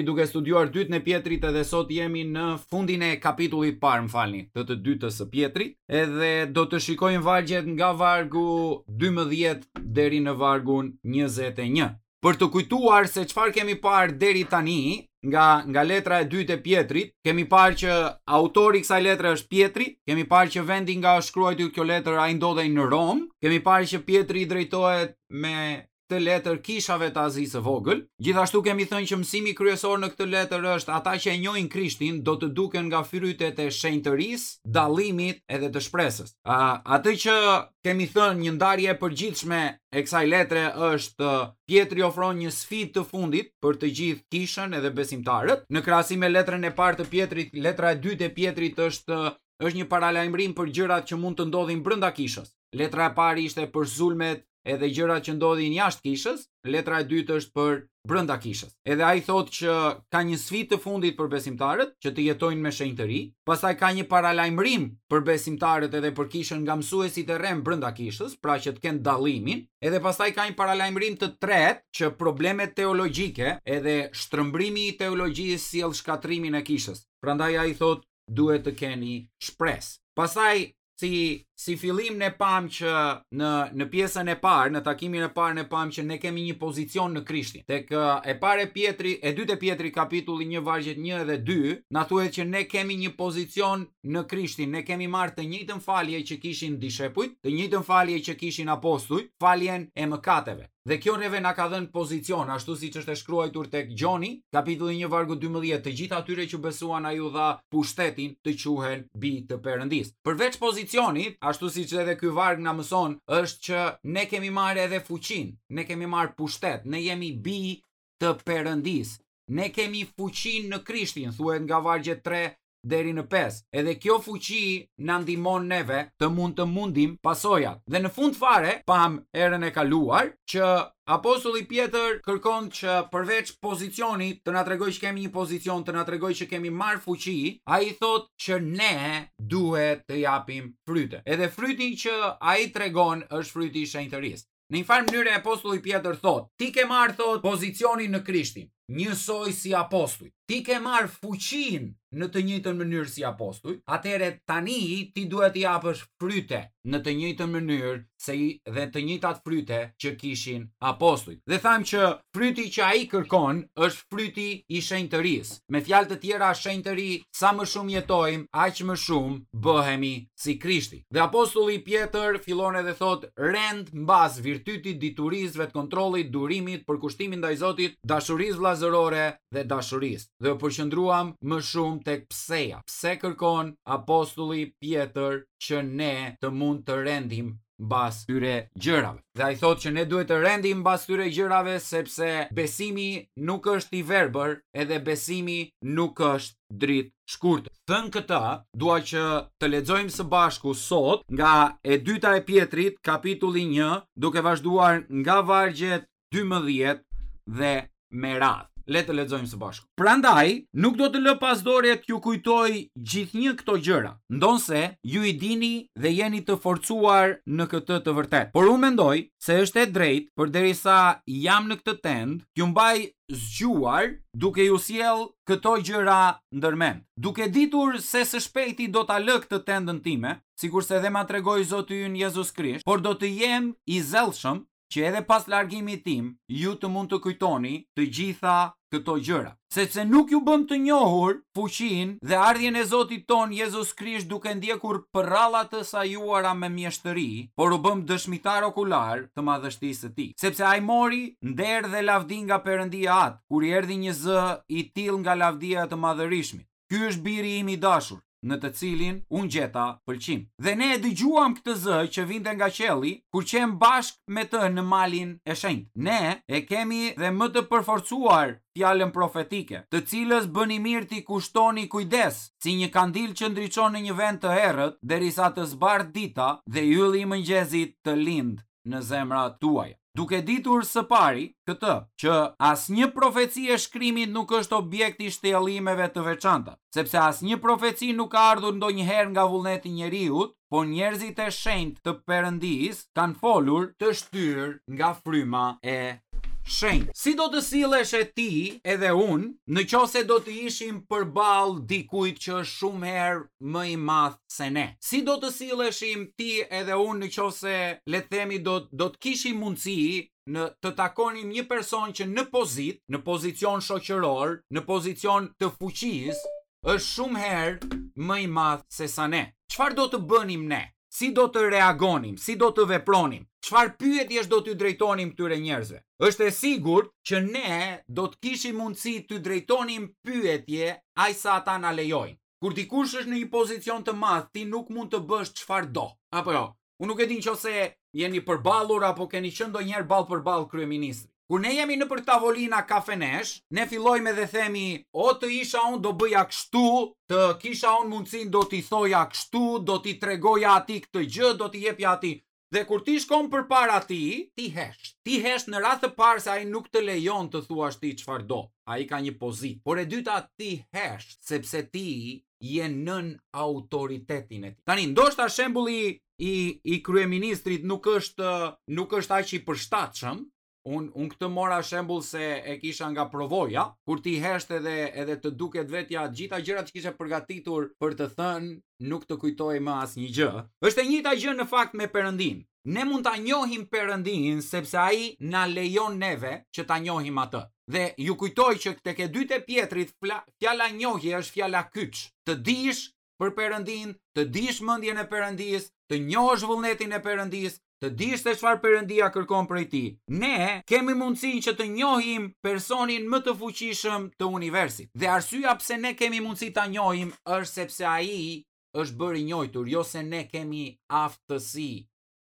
duke studiuar dytën e Pjetrit edhe sot jemi në fundin e kapitullit parë, më falni, të të dytës së Pjetrit, edhe do të shikojmë vargjet nga vargu 12 deri në vargun 21. Për të kujtuar se çfarë kemi parë deri tani nga nga letra e dytë e Pjetrit, kemi parë që autori i kësaj letre është Pjetri, kemi parë që vendi nga është shkruajtur kjo letër ai ndodhej në Romë, kemi parë që Pjetri i drejtohet me këtë letër kishave të Azisë së Vogël. Gjithashtu kemi thënë që mësimi kryesor në këtë letër është ata që e njohin Krishtin do të duken nga frytet e shenjtërisë, dallimit edhe të shpresës. Uh, atë që kemi thënë një ndarje e përgjithshme e kësaj letre është Pjetri ofron një sfidë të fundit për të gjithë kishën edhe besimtarët. Në krahasim me letrën e parë të Pjetrit, letra e dytë e Pjetrit është është një paralajmërim për gjërat që mund të ndodhin brenda kishës. Letra e parë ishte për sulmet edhe gjërat që ndodhin jashtë kishës, letra e dytë është për brenda kishës. Edhe ai thotë që ka një sfidë të fundit për besimtarët që të jetojnë me shenjtëri, pastaj ka një paralajmërim për besimtarët edhe për kishën nga mësuesit e rremë brenda kishës, pra që të kenë dallimin, edhe pastaj ka një paralajmërim të tretë që problemet teologjike edhe shtrëmbrimi i teologjisë sjell shkatërrimin e kishës. Prandaj ai thotë duhet të keni shpresë. Pastaj si si fillim ne pamë që në në pjesën e parë, në takimin e parë ne pamë që ne kemi një pozicion në Krishtin. Tek e para e Pjetri, e dytë e Pjetri kapitulli 1 vargjet 1 edhe 2, na thuhet që ne kemi një pozicion në Krishtin, ne kemi marrë të njëjtën falje që kishin dishepujt, të njëjtën falje që kishin apostujt, faljen e mëkateve. Dhe kjo neve na ka dhënë pozicion, ashtu siç është e shkruajtur tek Gjoni, kapitulli 1 vargu 12, të gjithë atyre që besuan ai u dha pushtetin të quhen bij të Perëndisë. Përveç pozicionit, ashtu siç edhe ky varg na mëson, është që ne kemi marrë edhe fuqinë, ne kemi marrë pushtet, ne jemi bij të Perëndisë. Ne kemi fuqinë në Krishtin, thuhet nga vargjet 3 deri në 5. Edhe kjo fuqi na ndihmon neve të mund të mundim pasojat. Dhe në fund fare, pamë herën e kaluar që apostulli Pjetër kërkon që përveç pozicionit të na tregojë që kemi një pozicion, të na tregojë që kemi marrë fuqi, ai thotë që ne duhet të japim fryte. Edhe fryti që ai tregon është fryti i shenjtërisë. Në një farë mënyre apostulli Pjetër thotë, ti ke marrë thotë pozicionin në Krishtin, njësoj si apostujt. Ti ke marrë fuqinë në të njëjtën mënyrë si apostujt, atëherë tani ti duhet të japësh fryte në të njëjtën mënyrë se i, dhe të njëjtat fryte që kishin apostujt. Dhe thamë që fryti që ai kërkon është fryti i shenjtërisë. Me fjalë të tjera, shenjtëri, sa më shumë jetojmë, aq më shumë bëhemi si Krishti. Dhe apostulli Pjetër fillon edhe thotë rend mbas virtytit, diturisë, vetëkontrollit, durimit, përkushtimit ndaj Zotit, dashurisë vëllazërore dhe dashurisë. Dhe u përqendruam më shumë tek pseja. Pse kërkon apostulli Pjetër që ne të mund të rendim mbas këtyre gjërave. Dhe ai thotë që ne duhet të rendim mbas këtyre gjërave sepse besimi nuk është i verbër, edhe besimi nuk është dritëshkurtër. Thënë këtë, dua që të lexojmë së bashku sot nga e dyta e Pjetrit, kapitulli 1, duke vazhduar nga vargjet 12 dhe me radhë. Le të lexojmë së bashku. Prandaj, nuk do të lë pas dore t'ju kujtoj gjithnjë këto gjëra, ndonëse ju i dini dhe jeni të forcuar në këtë të vërtetë. Por unë mendoj se është e drejtë, përderisa jam në këtë tendë, t'ju mbaj zgjuar duke ju sjellë këto gjëra ndërmend. Duke ditur se së shpejti do ta lë këtë tendën time, sikurse dhe ma tregoi Zoti ynë Jezus Krisht, por do të jem i zellshëm që edhe pas largimit tim ju të mund të kujtoni të gjitha këto gjëra. Sepse nuk ju bëmë të njohur fuqinë dhe ardhjen e Zotit tonë Jezus Krisht duke ndjekur përralla të sajuara me mjeshtëri, por u bëmë dëshmitarë okularë të madhështisë së tij. Sepse ai mori nder dhe lavdi nga Perëndia Atë, kur i erdhi një zë i tillë nga lavdia e të Madhërishmit. Ky është biri im i dashur, në të cilin unë gjeta pëlqim. Dhe ne e dëgjuam këtë zë që vinte nga qielli, kur qemë bashkë me të në malin e shenjtë. Ne e kemi dhe më të përforcuar fjalën profetike, të cilës bëni mirë t'i kushtoni kujdes, si një kandil që ndriçon në një vend të errët, derisa të zbardhë dita dhe ylli i mëngjesit të lindë në zemrat tuaja. Duke ditur së pari këtë, që asnjë profeci e shkrimit nuk është objekt i shtjellimeve të veçanta, sepse asnjë profeci nuk ka ardhur ndonjëherë nga vullneti i njeriut, por njerëzit e shenjtë të Perëndisë kanë folur të shtyrë nga fryma e Shenjtë. Si do të silleshe ti edhe unë, në qoftë se do të ishim përballë dikujt që është shumë herë më i madh se ne? Si do të silleshim ti edhe unë në qoftë se, le të themi, do do të kishim mundësi në të takonim një person që në pozitë, në pozicion shoqëror, në pozicion të fuqisë, është shumë herë më i madh se sa ne. Çfarë do të bënim ne? Si do të reagonim? Si do të vepronim? Çfarë pyetjesh do t'u drejtonim këtyre njerëzve? Është e sigurt që ne do të kishim mundësi t'u drejtonim pyetje aq sa ata na lejojnë. Kur dikush është në një pozicion të madh, ti nuk mund të bësh çfarë do. Apo jo? Unë nuk e di nëse jeni përballur apo keni qenë ndonjëherë ballë për ballë kryeministrit. Kur ne jemi nëpër tavolina kafenesh, ne fillojmë edhe themi, o të isha unë do bëja kështu, të kisha unë mundësinë do t'i thoja kështu, do t'i tregoja atij këtë gjë, do t'i jepja atij. Dhe kur ti shkon përpara tij, ti hesht. Ti hesht në radhë të parë se ai nuk të lejon të thuash ti çfarë do. Ai ka një pozitë. Por e dyta ti hesht sepse ti je nën autoritetin e tij. Tani ndoshta shembulli i i kryeministrit nuk është nuk është aq i përshtatshëm. Unë un këtë mora shembull se e kisha nga përvoja, kur ti hesht edhe edhe të duket vetja të gjitha gjërat që kishe përgatitur për të thënë, nuk të kujtohej më asnjë gjë. Është e njëjta gjë në fakt me Perëndinë. Ne mund ta njohim Perëndinë sepse ai na lejon neve që ta njohim atë. Dhe ju kujtoj që tek e dyta e Pjetrit fjala njohje është fjala kyç. Të dish për Perëndinë, të dish mendjen e Perëndisë, të njohësh vullnetin e Perëndisë, të dish se çfarë Perëndia kërkon prej tij. Ne kemi mundësinë që të njohim personin më të fuqishëm të universit. Dhe arsyeja pse ne kemi mundësi ta njohim është sepse ai është bërë i njohur, jo se ne kemi aftësi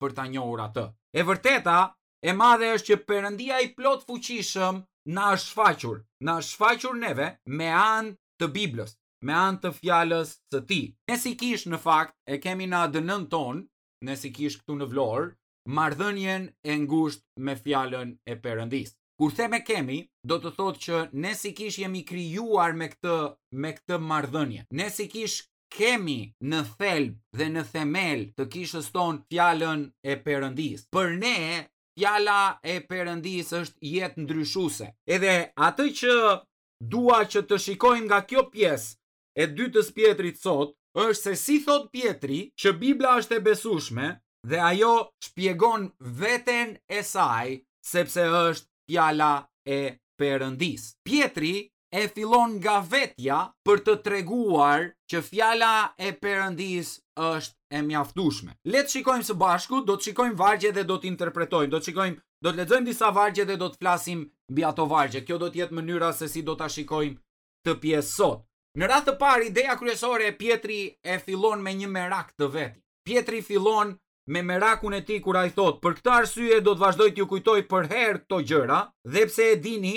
për ta njohur atë. E vërteta e madhe është që Perëndia i plotfuqishëm na është shfaqur, na është shfaqur neve me anë të Biblës, me anë të fjalës së tij. Ne si kishë në fakt e kemi në ADN-në tonë, ne si kishë këtu në Vlorë, marrëdhënien e ngushtë me fjalën e Perëndisë. Kur them e kemi, do të thotë që ne si kishë jemi krijuar me këtë me këtë marrëdhënie. Ne si kishë kemi në thelb dhe në themel të kishës tonë fjalën e Perëndisë. Për ne fjala e Perëndisë është jetëndryshuese. Edhe atë që dua që të shikojmë nga kjo pjesë e dytës Pjetrit sot, është se si thotë Pjetri që Bibla është e besueshme dhe ajo shpjegon veten e saj sepse është fjala e Perëndisë. Pjetri e fillon nga vetja për të treguar që fjala e Perëndisë është e mjaftueshme. Le të shikojmë së bashku, do të shikojmë vargje dhe do të interpretojmë, do të shikojmë, do të lexojmë disa vargje dhe do të flasim mbi ato vargje. Kjo do të jetë mënyra se si do ta shikojmë këtë pjesë sot. Në radhë të parë, ideja kryesore e Pjetri e fillon me një merak të vetin. Pjetri fillon me merakun e tij kur ai thotë, për këtë arsye do të vazhdoj t'ju kujtoj përherë këto gjëra, dhe pse e dini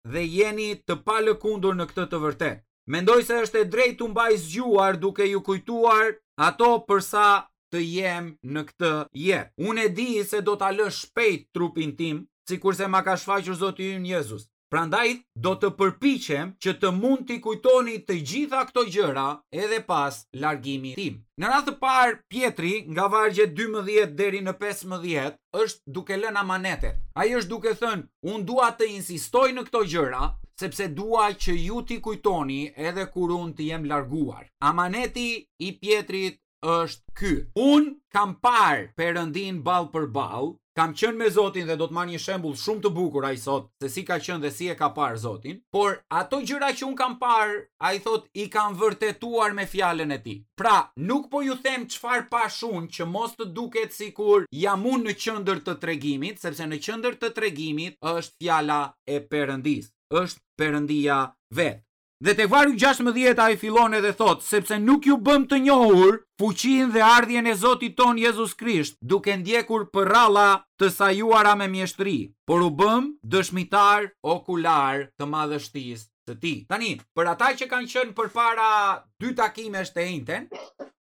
dhe jeni të palëkundur në këtë të vërtetë. Mendoj se është e drejtë t'ju mbaj zgjuar duke ju kujtuar ato për sa të jem në këtë jetë. Unë e di se do ta lë shpejt trupin tim, sikurse ma ka shfaqur Zoti ynë Jezus. Prandaj do të përpiqem që të mund t'i kujtoni të gjitha këto gjëra edhe pas largimit tim. Në radhë të parë, Pjetri, nga vargjet 12 deri në 15, është duke lënë amanetet. Ai është duke thënë, unë dua të insistoj në këto gjëra, sepse dua që ju t'i kujtoni edhe kur unë të jem larguar. Amaneti i Pjetrit është ky. Unë kam parë Perëndinë ballë për ballë, kam qenë me Zotin dhe do të marr një shembull shumë të bukur ai sot se si ka qenë dhe si e ka parë Zotin, por ato gjëra që unë kam parë, ai thotë i kam vërtetuar me fjalën e tij. Pra, nuk po ju them çfarë pashë unë që mos të duket sikur jam unë në qendër të tregimit, sepse në qendër të tregimit është fjala e Perëndisë, është Perëndia vetë. Dhe tek vargu 16 ai fillon edhe thotë, sepse nuk ju bëmë të njohur fuqinë dhe ardhjen e Zotit tonë Jezus Krisht, duke ndjekur përralla të sajuara me mjeshtëri, por u bëmë dëshmitarë okularë të madhështisë së tij. Tani, për ata që kanë qenë përpara dy takimesh të enjten,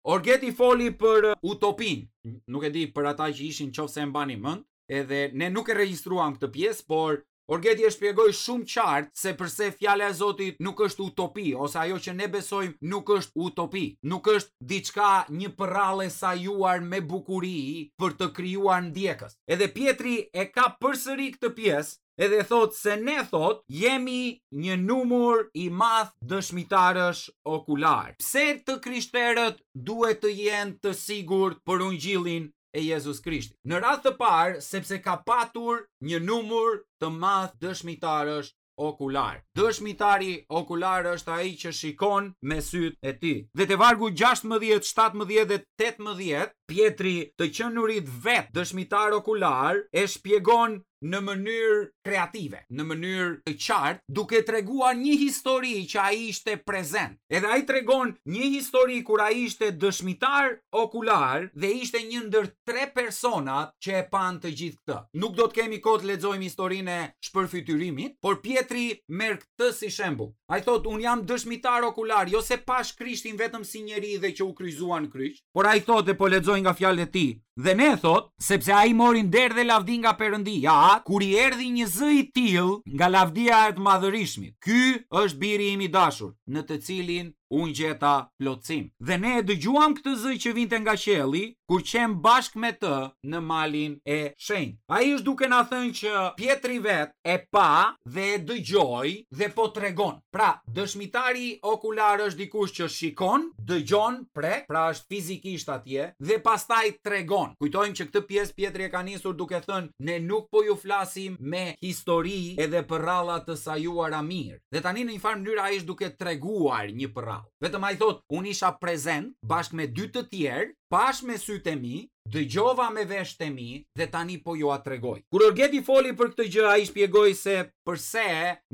Orgeti foli për utopinë. Nuk e di për ata që ishin qoftë se e mbani mend, edhe ne nuk e regjistruam këtë pjesë, por. Orgeti e shpjegoi shumë qartë se përse fjala e Zotit nuk është utopi, ose ajo që ne besojmë nuk është utopi, nuk është diçka një përrallë e sajuar me bukuri për të krijuar ndjekës. Edhe Pjetri e ka përsëri këtë pjesë edhe thotë se ne thotë jemi një numër i madh dëshmitarësh okular. Pse të krishterët duhet të jenë të sigurt për ungjillin e Jezus Krishtit? Në radhë të parë, sepse ka patur një numër të madh dëshmitarësh okular. Dëshmitari okular është ai që shikon me sytë e tij. Dhe te vargu 16, 17 dhe 18, Pjetri të qenurit vetë dëshmitar okular e shpjegon në mënyrë kreative, në mënyrë të qartë, duke treguar një histori që ai ishte prezent. Edhe ai tregon një histori kur ai ishte dëshmitar okular dhe ishte një ndër tre personat që e panë të gjithë këtë. Nuk do të kemi kohë të lexojmë historinë e shpërfytyrimit, por Pjetri merr këtë si shembull. Ai thotë, unë jam dëshmitar okular, jo se pashë Krishtin vetëm si njeri dhe që u kryqëzua në kryq, por ai thotë dhe po lexoj nga fjalët e tij, dhe ne thotë, sepse ai mori nder dhe lavdi nga Perëndia, kur i erdhi një zë i tillë nga lavdia e të Madhërishmit, Ky është biri im i dashur, në të cilin unë gjeta plotësim. Dhe ne e dëgjuam këtë zë që vinte nga qielli, kur qemë bashkë me të në malin e shenjtë. Ai është duke na thënë që Pjetri vetë e pa dhe e dëgjoi dhe po tregon. Pra, dëshmitari okular është dikush që shikon, dëgjon, prek, pra është fizikisht atje dhe pastaj tregon. Kujtojmë që këtë pjesë Pjetri e ka nisur duke thënë ne nuk po ju flasim me histori edhe përralla të sajuara mirë. Dhe tani në një farë mënyrë ai është duke treguar një përrallë. Vetëm ai thotë, unë isha prezent bashkë me dy të tjerë, pashë me sytë e mi, dëgjova me veshët e mi dhe tani po jua tregoj. Kur Orgeti foli për këtë gjë, ai shpjegoi se përse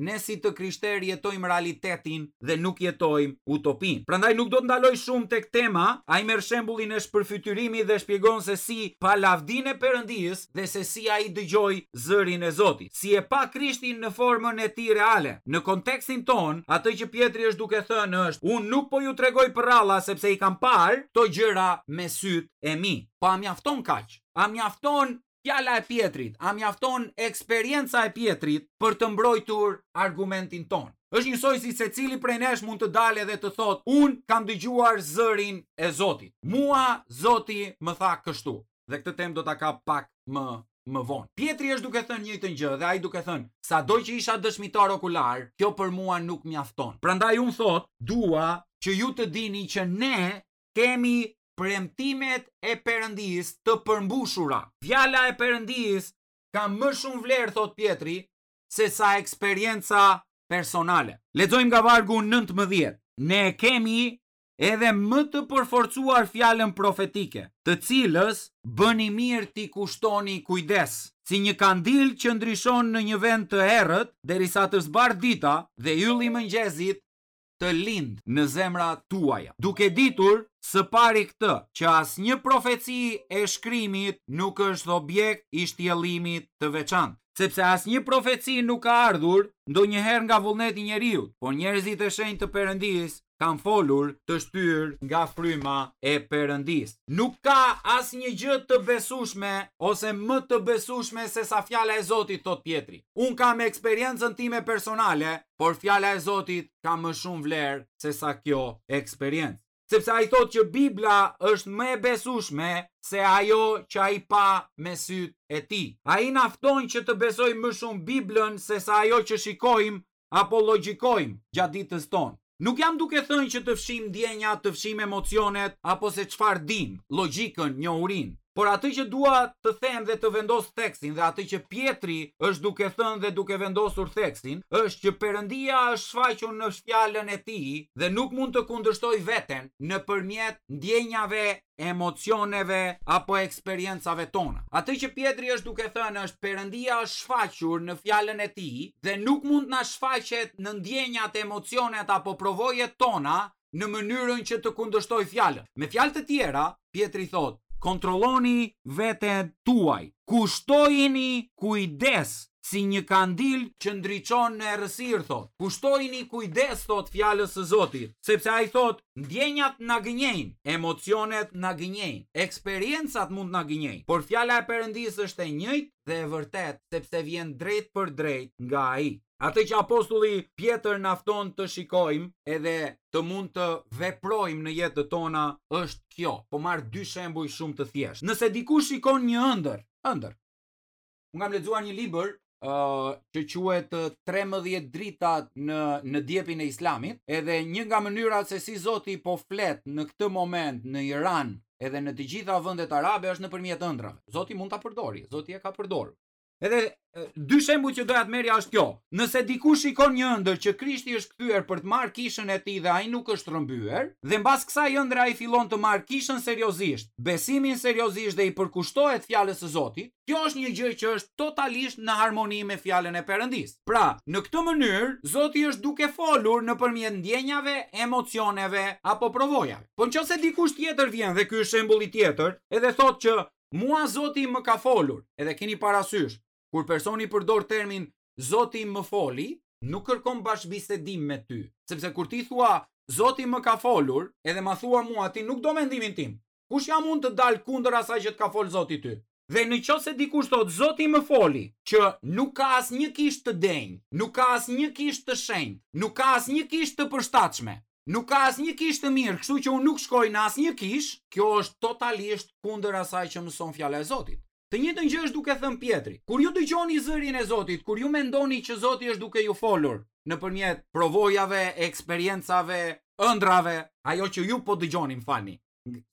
ne si të krishterë jetojmë realitetin dhe nuk jetojmë utopinë. Prandaj nuk do të ndaloj shumë tek tema, ai merr shembullin e shpërfytyrimit dhe shpjegon se si pa lavdinë e Perëndisë dhe se si ai dëgjoi zërin e Zotit, si e pa Krishtin në formën e tij reale. Në kontekstin tonë, atë që Pjetri është duke thënë është, unë nuk po ju tregoj përralla sepse i kam parë këto gjëra me sytë e mi. Po a mjafton kaq? A mjafton fjala e Pjetrit? A mjafton eksperienca e Pjetrit për të mbrojtur argumentin tonë? Është njësoj si secili prej nesh mund të dalë edhe të thotë, unë kam dëgjuar zërin e Zotit. Mua Zoti më tha kështu. Dhe këtë temë do ta kap pak më më vonë. Pjetri është duke thënë njëjtën gjë dhe ai duke thënë, sado që isha dëshmitar okular, kjo për mua nuk mjafton. Prandaj unë thotë, dua që ju të dini që ne kemi premtimet e Perëndisë të përmbushura. Fjala e Perëndisë ka më shumë vlerë, thotë Pjetri, se sa eksperienca personale. Lexojmë nga vargu 19. Ne kemi edhe më të përforcuar fjalën profetike, të cilës bëni mirë t'i kushtoni kujdes, si një kandil që ndriçon në një vend të errët, derisa të zbardhë dita dhe ylli i mëngjesit të lindë në zemrat tuaja. Duke ditur së pari këtë, që asnjë profeci e shkrimit nuk është objekt i shtjellimit të veçantë. Sepse asnjë profeci nuk ka ardhur ndonjëherë nga vullneti i njeriut, por njerëzit e shenjtë të Perëndisë kanë folur të shtyrë nga fryma e Perëndisë. Nuk ka asnjë gjë të besueshme ose më të besueshme sesa fjala e Zotit, thotë Pjetri. Unë kam eksperiencën time personale, por fjala e Zotit ka më shumë vlerë sesa kjo eksperiencë. Sepse ai thotë që Bibla është më e besueshme se ajo që ai pa me sytë e tij. Ai na fton që të besojmë më shumë Biblën sesa ajo që shikojmë apo logjikojmë gjatë ditës tonë. Nuk jam duke thënë që të fshijmë ndjenjat, të fshijmë emocionet apo se çfarë dimë, logjikën, njohurinë. Por atë që dua të them dhe të vendos theksin dhe atë që Pjetri është duke thënë dhe duke vendosur theksin, është që Perëndia është shfaqur në fjalën e tij dhe nuk mund të kundërshtojë veten nëpërmjet ndjenjave emocioneve apo eksperiencave tona. Atë që Pjetri është duke thënë është Perëndia është shfaqur në fjalën e tij dhe nuk mund të na shfaqet në ndjenjat, emocionet apo përvojat tona në mënyrën që të kundërshtojë fjalën. Me fjalë të tjera, Pjetri thotë, kontrolloni veten tuaj, kushtojini kujdes. si një kandil që ndriçon në errësirë, thotë. Kushtojini kujdes, thotë fjalës së Zotit, sepse ai thotë, ndjenjat na gënjejnë, emocionet na gënjejnë, eksperiencat mund të na gënjejnë, por fjala e Perëndisë është e njëjtë dhe e vërtetë, sepse vjen drejtpërdrejt nga ai. Atë që apostulli Pjetër na fton të shikojmë edhe të mund të veprojmë në jetët tona është kjo. Po marr dy shembuj shumë të thjeshtë. Nëse dikush shikon një ëndërr, ëndërr. Unë kam lexuar një libër uh, që quhet 13 dritat në në djepin e Islamit, edhe një nga mënyrat se si Zoti po flet në këtë moment në Iran edhe në të gjitha vendet arabe është nëpërmjet ëndrrave. Zoti mund ta përdori, Zoti e ka përdorur. Edhe dy shembuj që doja të merrja është kjo. Nëse dikush shikon një ëndërr që Krishti është kthyer për të marrë kishën e tij dhe ai nuk është rrëmbyer, dhe mbas kësaj ëndrre ai fillon të marrë kishën seriozisht, besimin seriozisht dhe i përkushtohet fjalës së Zotit, kjo është një gjë që është totalisht në harmoni me fjalën e Perëndisë. Pra, në këtë mënyrë, Zoti është duke folur nëpërmjet ndjenjave, emocioneve apo provojave. Po në qoftë se dikush tjetër vjen dhe ky është shembulli tjetër, edhe thotë që Mua Zoti më ka folur, edhe keni parasysh, kur personi përdor termin Zoti më foli, nuk kërkon bashkëbisedim me ty, sepse kur ti thua Zoti më ka folur, edhe ma thua mua ti nuk do mendimin tim. Kush jam unë të dal kundër asaj që të ka fol Zoti ty? Dhe në qoftë se dikush thotë Zoti më foli, që nuk ka asnjë kishë të denjë, nuk ka asnjë kishë të shenjtë, nuk ka asnjë kishë të përshtatshme, Nuk ka asnjë kishë të mirë, kështu që unë nuk shkoj në asnjë kishë, kjo është totalisht kundër asaj që mëson fjala e Zotit. Të njëjtën gjë është duke thënë Pjetri. Kur ju dëgjoni zërin e Zotit, kur ju mendoni që Zoti është duke ju folur nëpërmjet provojave, eksperiencave, ëndrrave, ajo që ju po dëgjoni, më falni,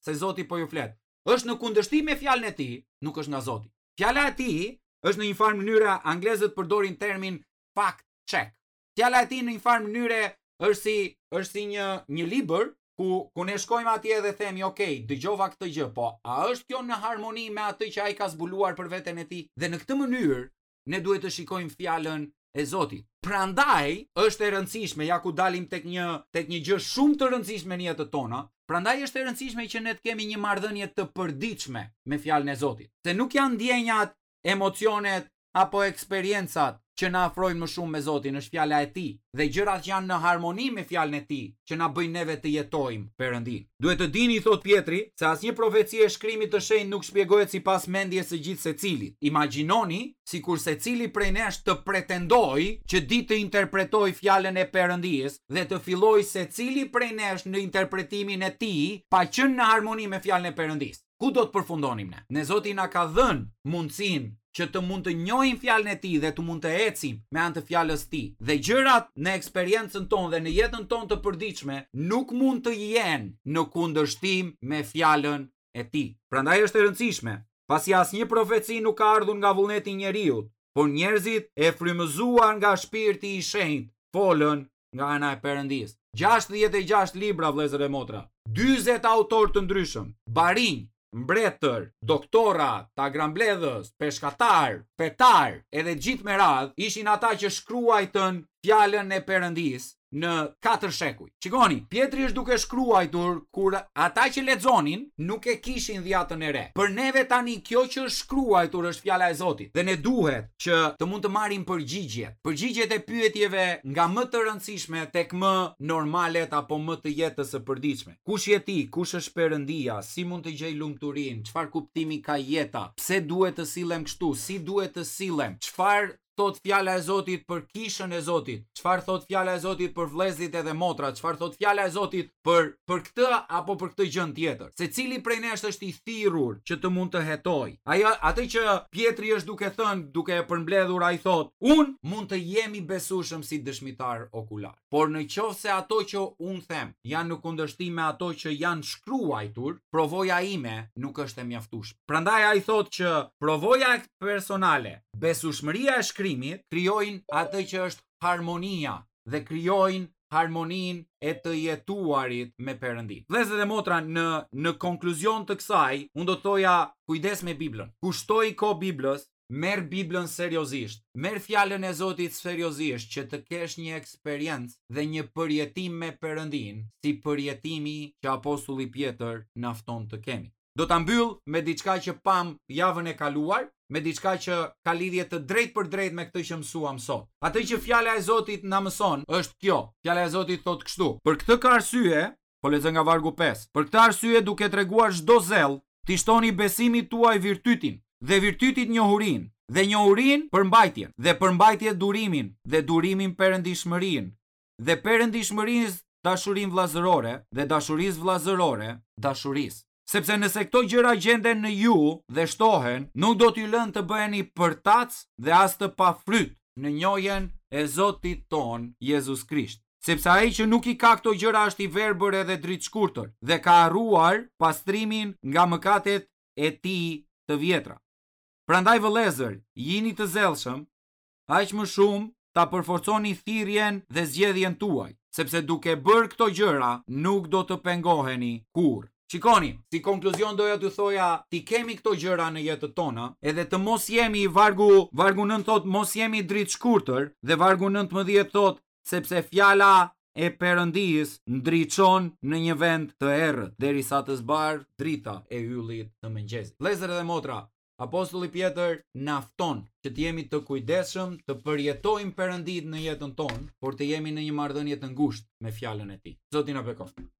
se Zoti po ju flet, është në kundërshtim me fjalën e tij, nuk është nga Zoti. Fjala e tij është në një farë mënyre anglezët përdorin termin fact check. Fjala e tij në një farë mënyre është si është si një një libër ku ku ne shkojmë atje dhe themi, "Ok, dëgjova këtë gjë, po a është kjo në harmoni me atë që ai ka zbuluar për veten e tij?" Dhe në këtë mënyrë ne duhet të shikojmë fjalën e Zotit. Prandaj është e rëndësishme, ja ku dalim tek një tek një gjë shumë të rëndësishme në jetët tona, prandaj është e rëndësishme që ne të kemi një marrëdhënie të përditshme me fjalën e Zotit. Se nuk janë ndjenjat, emocionet apo eksperiencat që na afrojnë më shumë me Zotin është fjala e Tij dhe gjërat që janë në harmoni me fjalën e Tij që na bëjnë neve të jetojmë Perëndinë. Duhet të dini, thotë Pjetri, se asnjë profeci e Shkrimit të Shenjtë nuk shpjegohet sipas mendjes së gjithsecilit. Imagjinoni sikur secili prej nesh të pretendojë që di të interpretojë fjalën e Perëndisë dhe të fillojë secili prej nesh në interpretimin e tij pa qenë në harmoni me fjalën e Perëndisë. Ku do të përfundonim ne? Ne Zoti na ka dhënë mundësinë që të mund të njohim fjalën e tij dhe të mund të ecim me anë të fjalës tij. Dhe gjërat në eksperiencën tonë dhe në jetën tonë të përditshme nuk mund të jenë në kundërshtim me fjalën e tij. Prandaj është e rëndësishme, pasi asnjë profeci nuk ka ardhur nga vullneti i njeriut, por njerëzit e frymëzuar nga Shpirti i Shenjtë folën nga ana e Perëndisë. 66 libra vëllezër e motra, 40 autorë të ndryshëm, barinj, mbretër, doktora, tagrambledhës, peshkatarë, fetarë, edhe gjithë me radhë, ishin ata që shkruajtën fjalën e Perëndisë në katër shekuj. Shikoni, Pjetri është duke shkruajtur kur ata që lexonin nuk e kishin dhjatën e re. Për neve tani kjo që është shkruajtur është fjala e Zotit dhe ne duhet që të mund të marrim përgjigjet. Përgjigjet e pyetjeve nga më të rëndësishme tek më normalet apo më të jetës së përditshme. Kush je ti? Kush është Perëndia? Si mund të gjej lumturinë? Çfarë kuptimi ka jeta? Pse duhet të sillem kështu? Si duhet të sillem? Çfarë thotë fjala e Zotit për kishën e Zotit? Çfarë thotë fjala e Zotit për vëllezërit edhe motrat? Çfarë thotë fjala e Zotit për për këtë apo për këtë gjë tjetër? Secili prej nesh është i thirrur që të mund të hetojë. Ajo atë që Pjetri është duke thënë, duke e përmbledhur ai thotë, unë mund të jem i besueshëm si dëshmitar okular. Por në qoftë se ato që unë them janë në kundërshtim me ato që janë shkruajtur, provoja ime nuk është e mjaftueshme. Prandaj ai thotë që provoja personale, besueshmëria e shkrimit krijojnë atë që është harmonia dhe krijojnë harmoninë e të jetuarit me Perëndinë. Vëllezër dhe motra, në në konkluzion të kësaj, unë do të thoja kujdes me Biblën. Kushtoji kohë Biblës, merr Biblën seriozisht, merr fjalën e Zotit seriozisht që të kesh një eksperiencë dhe një përjetim me Perëndinë, si përjetimi që apostulli Pjetër na fton të kemi. Do ta mbyll me diçka që pamë javën e kaluar, me diçka që ka lidhje të drejtpërdrejtë me këtë që mësuam sot. Atë që fjala e Zotit na mëson është kjo. Fjala e Zotit thotë kështu: Për këtë ka arsye, po lexoj nga vargu 5. Për këtë arsye duke treguar çdo zell, t'i shtoni besimit tuaj virtytin, dhe virtytit njohurinë, dhe njohurinë përmbajtjen, dhe përmbajtjes durimin, dhe durimin perëndishmërinë, dhe perëndishmërisë dashurinë vëllazërore, dhe dashurisë vëllazërore dashurisë. Sepse nëse këto gjëra gjenden në ju dhe shtohen, nuk do t'ju lënë të bëheni përtacë dhe as të pafryt në njohjen e Zotit tonë Jezus Krisht. Sepse ai që nuk i ka këto gjëra është i verbër edhe dritëshkurtër dhe ka harruar pastrimin nga mëkatet e tij të vjetra. Prandaj vëllezër, jini të zellshëm, aq më shumë ta përforconi thirrjen dhe zgjedhjen tuaj, sepse duke bërë këto gjëra nuk do të pengoheni kurrë. Shikoni, si konkluzion doja t'ju thoja, t'i kemi këto gjëra në jetët tona, edhe të mos jemi vargu, vargu 9 thotë mos jemi dritëshkurtër dhe vargu 19 thotë sepse fjala e Perëndisë ndriçon në një vend të errët derisa të zbardhë drita e yllit të mëngjesit. Vëllezër dhe motra, Apostulli Pjetër na fton që të jemi të kujdesshëm, të përjetojmë Perënditë në jetën tonë, por të jemi në një marrëdhënie të ngushtë me fjalën e tij. Zoti na bekoftë.